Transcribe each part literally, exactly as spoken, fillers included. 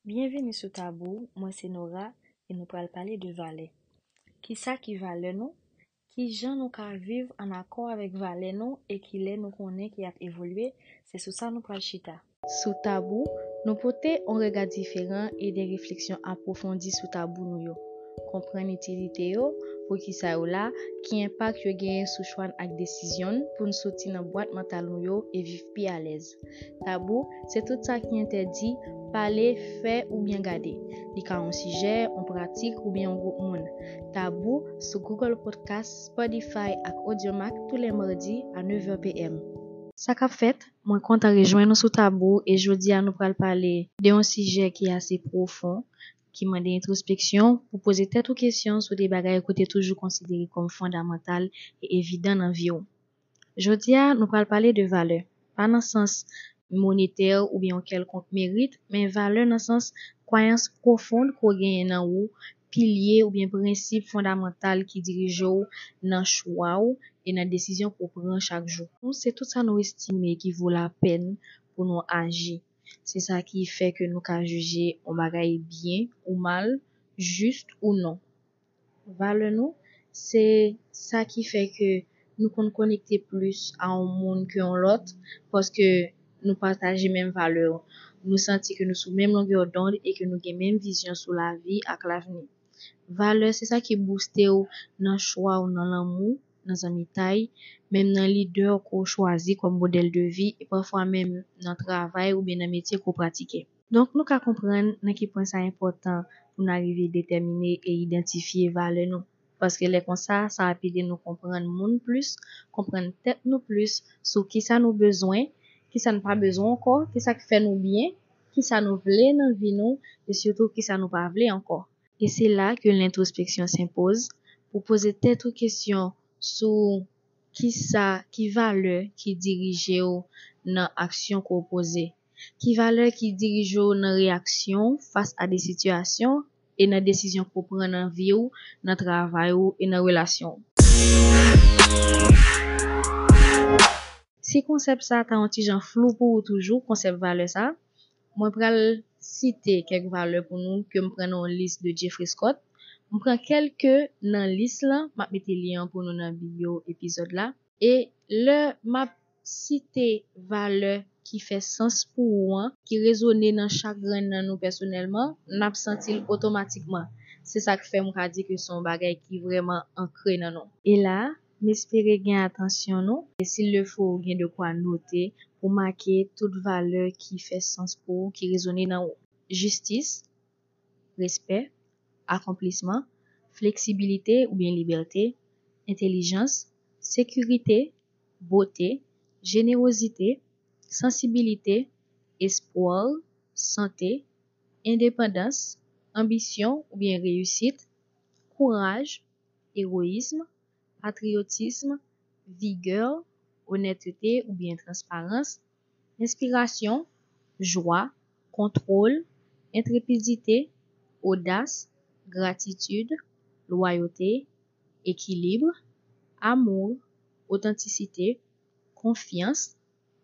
Byenvini sou Tabou, mwen se Nora e nou pral pale de valè. Kisa ki valè nou? Kijan nou ka viv ann akò avèk valè nou e kilè nou konnen ki ap evolye? Se sou sa nou pral chita. Sou Tabou, nou pote yon rega diferan e de refleksyon apwofondi sou tabou nou yo. Konprann itilite yo poukisa yo la, ki enpak yo genyen sou chwa n ak desizyon n pou n soti nan bwat mantal nou yo e viv pi alèz. Tabou, se tout sa ki entèdi, pale, fè oubyen gade. Li ka yon sijè, yon pratik oubyen yon gwoup moun. Tabou sou Google Podcast, Spotify ak Audiomack tou lè madi a nèv è p m. Sa k ap fèt? Mwen kontan rejwenn nou sou Tabou e jodi a nou pral pale de yon sijè ki ase pwofon, ki mande entwospeksyon pou poze tèt ou kesyon sou de bagay ke w te toujou konsidere kòm fondamantal e evidan nan vi w. Jodi a, nou pral pale de valè, pa nan sans monetè oubyen yon kèlkonk merit, men valè nan sans kwayans pwofon ke w genyen nan ou, pilye oubyen prensip fondamantal ki dirije w nan chwa w e nan desizyon ke w pran chak jou. Se tout sa nou estime ki vo lapèn pou nou aji. Se sa ki fè ke nou ka jije yon bagay byen ou mal, jis ou non. Valè nou, se sa ki fè ke nou konn konekte plis a yon moun ke yon lòt, paske nou pataje menm valè yo. Nou santi ke nou sou menm longè dond e ke nou gen menm vizyon sou lavi ak lavni. Valè, se sa ki bouste w nan chwa w nan lanmou, nan zanmitay, menm nan lidè ke w chwazi kòm modèl de vi e pafwa menm nan travay oubyen nan metye ke w pratike. Donk, nou ka konprann nan ki pwen sa enpòtan pou n arive detèmine e idantifye valè nou. Paske lè konsa, sa ap ede nou konprann moun plis, konprann tèt nou plis sou kisa nou bezwen, kisa n pa bezwen ankò, kisa k fè nou byen, kisa nou vle nan vi nou, e sitou kisa nou pa vle ankò. E se la ke lentwospeksyon senpoz, pou poze tèt ou kesyon sou kisa, ki valè ki dirije w nan aksyon ke w poze. Ki valè ki dirije w nan reyaksyon w fas a de sitiyasyon e nan desizyon ke w pran nan vi w, nan travay ou e nan relasyon w. Si konsèp sa ta yon ti jan flou pou ou toujou, konsèp valè sa, mwen pral site kèk valè pou nou ke m pran nan yon lis de Jeffrey Scott. M pran kèlke nan lis lan, m ap mete lyen an pou nou nan biyo epizòd la. E lè m ap site valè ki fè sans pou ou an, ki rezone nan chak grenn nan nou pèsonèlman, n ap santi l otomatikman. Se sa k fè m ka di ke se yon bagay ki vrèman ankre nan nou. E la, m espere gen atansyon nou, e s'il le faut, ou gen de kwa note pou make tout valè ki fè sans pou ou, ki rezone nan ou. Jistis, respè, akonplisman, fleksibilite oubyen libète, entèlijans, sekirite, bote, jenerozite, sansibilite, espwa, sante, endepandans, anbisyon oubyen reyisit, kouraj, egoyism, patriyotism, vigè, onètete oubyen transparans, enspirasyon, jwa, kontwòl, entrepidite, odas, gratitid, lwayote, ekilib, amou, otantisite, konfyans,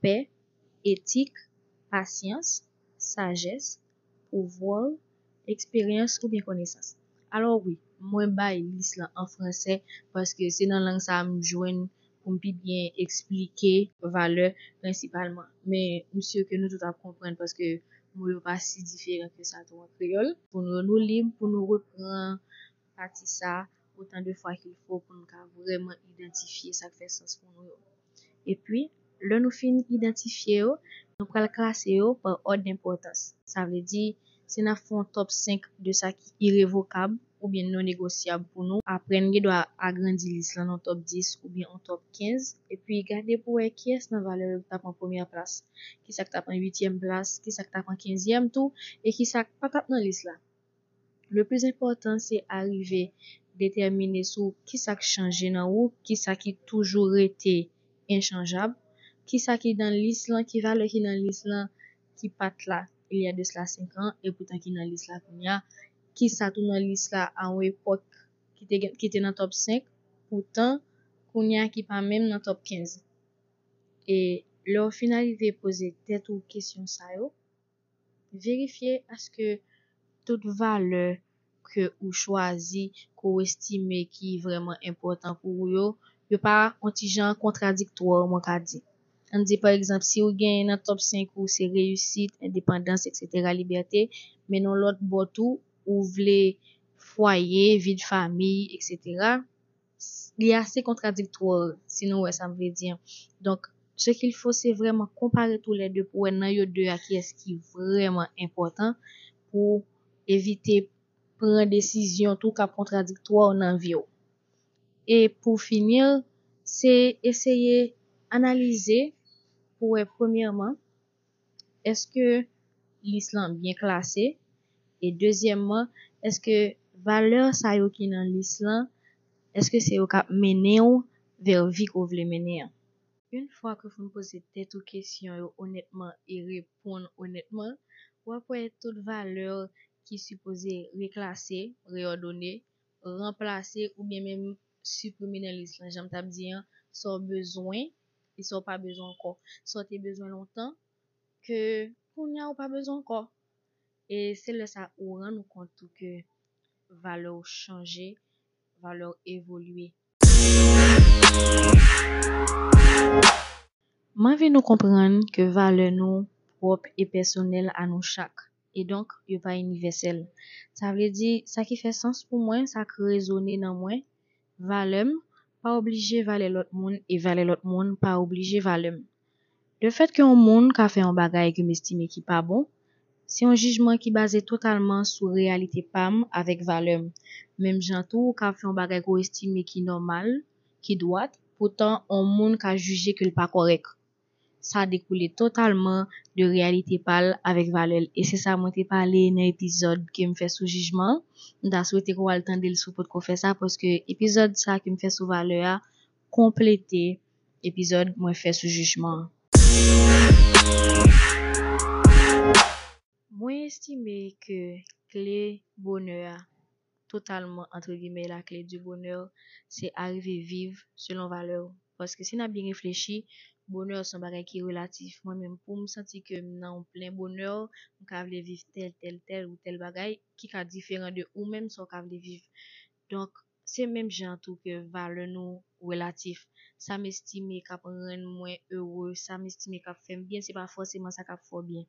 pè, etik, pasyans, sajès, pouvwa, eksperyans oubyen konesans. Alò wi, mwen bay lis lan an fransè paske se nan lang sa a m jwenn pou m pi byen eksplike valè prensipalman. Men m si ke nou tout ap konprann paske mo yo pa si diferan ke sa tou an kreyòl. Pou nou, nou lib pou nou repran pati sa a otan de fwa qu'il faut pou nou ka vrèman idantifye sa k fè sans pou nou yo. Epi, lè nou fin idantifye yo, nou pral klase yo pa òd enpòtans. Sa vle di, si n ap fè yon top senk de sa ki irevokab oubyen non negosyab pou nou, aprè n gen dwa agrandi lis lan nan top dis oubyen yon top kenz, epi gade pou wè kiyès nan valè yo ki t ap an premyè plas, kisa k t ap an uityèm plas, kisa k t ap an kenzyèm tou, e kisa k pa t ap nan lis la. Le plis enpòtan, se arive detèmine sou kisa k chanje nan ou, kisa ki toujou rete enchanjab, kisa ki nan lis lan, ki valè ki nan lis lan ki pa t la il y a de cela cinq ans, e poutan ki nan lis la kounye a, kisa tou nan lis la a yon epòk ki te gen, ki te nan top senk, poutan kounye a ki pa menm nan top kenz. E lè w fin arive poze tèt ou kesyon sa yo, Verifye èske tout valè ke ou chwazi, ke ou estime ki vrèman enpòtan pou ou yo, yo pa yon ti jan kontradiktwa, mwen ka di. Ann di, pa egzanp, si ou genyen nan top senk ou se reyisit, endepandans, et cetera, libète, men nan lòt bò tou, ou vle fwaye, vi de famiy, et cetera, li ase kontradiktwa, si nou wè sa m vle di an. Donk, ce qu'il faut, se vrèman konpare tou lè de pou wè nan yo de a kiyès ki vrèman enpòtan pou evite pran desizyon tou k ap kontradiktwa nan vi w. E pou fini, se eseye analize pou wè, premyèman, èske lis lan byen klase? E dezyèmman, èske valè sa yo ki nan lis lan, èske se yo k ap mennen w vè vi ke w vle mennen an? Yon fwa ke w fin poze tèt ou kesyon yo onètman e reponn onètman, w ap wè tout valè ki sipoze reklase, reyòdone, ranplase oubyen menm siprime nan lis lan, jan m t ap di an, sa w bezwen e sa w pa bezwen ankò. Sa w te bezwen lontan, ke kounye a ou pa bezwen ankò. E se lè sa ou rann ou kont tou ke valè w chanje, valè w evolye. M anvi nou konprann ke valè nou pwòp e pèsonèl a nou chak. E donk, yo pa inivèsèl. Sa vle di, sa ki fè sans pou mwen, sa k rezone nan mwen, valè m pa oblije valè lòt moun e valè lòt moun pa oblije valè m. Lefètke yon moun ka fè yon bagay ke m estime ki pa bon, se yon jijman ki baze totalman sou reyalite pa m avèk valè m. Menm jan tou, ou ka fè yon bagay ke w estime ki nòmal, ki dwat, poutan yon moun ka jije ke l pa kòrèk. Sa dekoule totalman de reyalite pa l avèk valè l. E se sa mwen te pale nan epizòd ke m fè sou jijman an. M ta swete ke w al tande l si w potko fè sa, paske epizòd sa ke m fè sou valè a konplete epizòd mwen fè sou jijman an. Mwen estime ke kle bonè a, totalman, entre guillemets, la clé du bonheur, se arive viv selon valè w. Paske si n ap byen reflechi, bonè se yon bagay ki relatif. Mwen menm, pou m santi ke m nan yon plen bonè, m ka vle viv tèl, tèl, tèl ou tèl bagay ki ka diferan de ou menm sa w ka vle viv. Donk, se menm jan tou ke valè nou relatif. Sa m estime k ap rann mwen ere, sa m estime k ap fè m byen, se pa fòseman sa k ap fè w byen.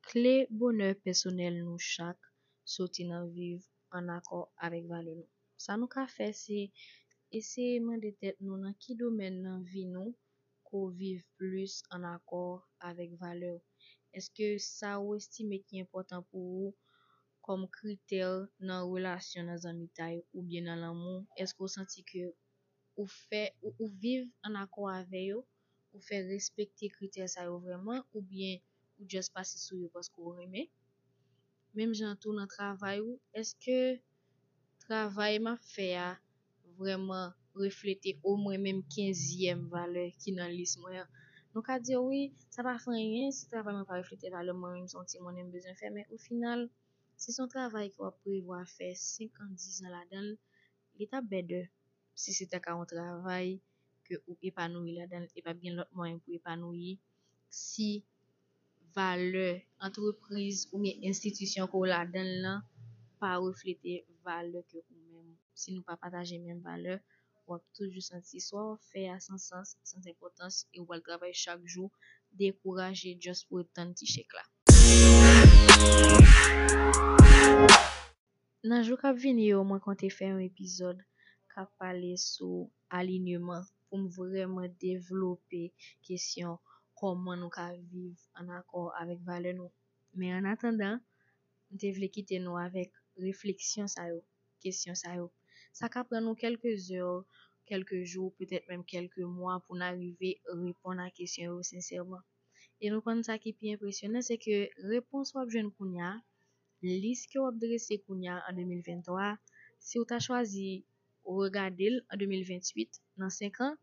Kle bonè pèsonèl nou chak soti nan viv ann akò avèk valè nou. Sa nou ka fè, se eseye mande tèt nou nan ki domèn nan vi nou ke w viv plis ann akò avèk valè w. Èske sa ou estime ki enpòtan pou ou kòm kritè nan relasyon, nan zanmitay oubyen nan lanmou, èske w santi ke ou fè, ou, ou viv ann akò avè yo, ou fè respekte kritè sa yo vrèman, oubyen ou just pase sou yo paske w renmen? Menm jan tou nan travay ou, èske travay m ap fè a vrèman reflete omwen menm kenzyèm valè ki nan lis mwen an? Nou ka di, wi, sa pa fè anyen si travay mwen pa reflete valè mwen, menm se yon ti monnen m bezwen fè, men ofinal, si se yon travay ke w ap prevwa fè senk an, diz an ladan l, li t ap better si se ta ka yon travay ke ou epanouyi ladan l, e p ap gen lòt mwayen pou epanouyi si valè antrepriz oubyen enstitisyon ke w ladan l lan pa reflete valè ke ou menm. Si nou pa pataje menm valè, w ap toujou santi swa w ap fè a san sans, san enpòtans, e w pral travay chak jou dekouraje just pou w tann ti chèk la. Nan jou k ap vini yo, mwen konte fè yon epizòd k ap pale sou alinyeman pou m vrèman devlope kesyon kòman nou ka viv ann akò avèk valè nou. Men annatandan, m te vle kite nou avèk refleksyon sa yo, kesyon sa yo. Sa ka pran nou kèlke zè, kèlke jou, petèt menm kèlke mwa pou n arive reponn a kesyon yo sensèman. E nou konn sa ki pi enpresyonan, se ke repons w ap jwenn kounye a, lis ke w ap drese kounye a an de mil venntwa, si w ta chwazi regade l an de mil venntuit, nan senk an,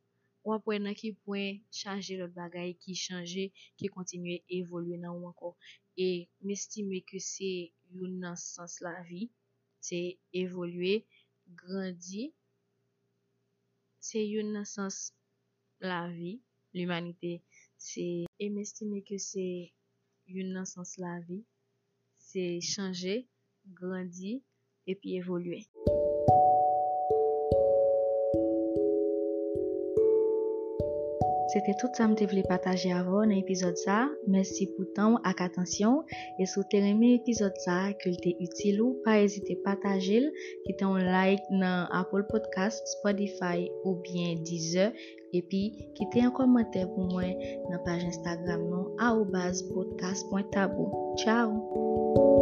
w ap wè nan ki pwen chaje lòt bagay ki chanje, ki kontinye evolye nan ou ankò. E m estime ke se youn nan sans lavi, se evolye, grandi, se youn nan sans lavi, limanite, se, e m estime ke se youn nan sans lavi, se chanje, grandi, epi evolye. Se te tout sa m te vle pataje avè w nan epizòd sa a. Mèsi pou tan w ak atansyon w. E si w te renmen epizòd sa a, ke l te itil ou, pa ezite pataje l, kite yon like nan Apple Podcast, Spotify oubyen Deezer. Epi, kite yon kòmantè pou mwen nan paj Instagram nou, arobase podcast point tabou. Tchao!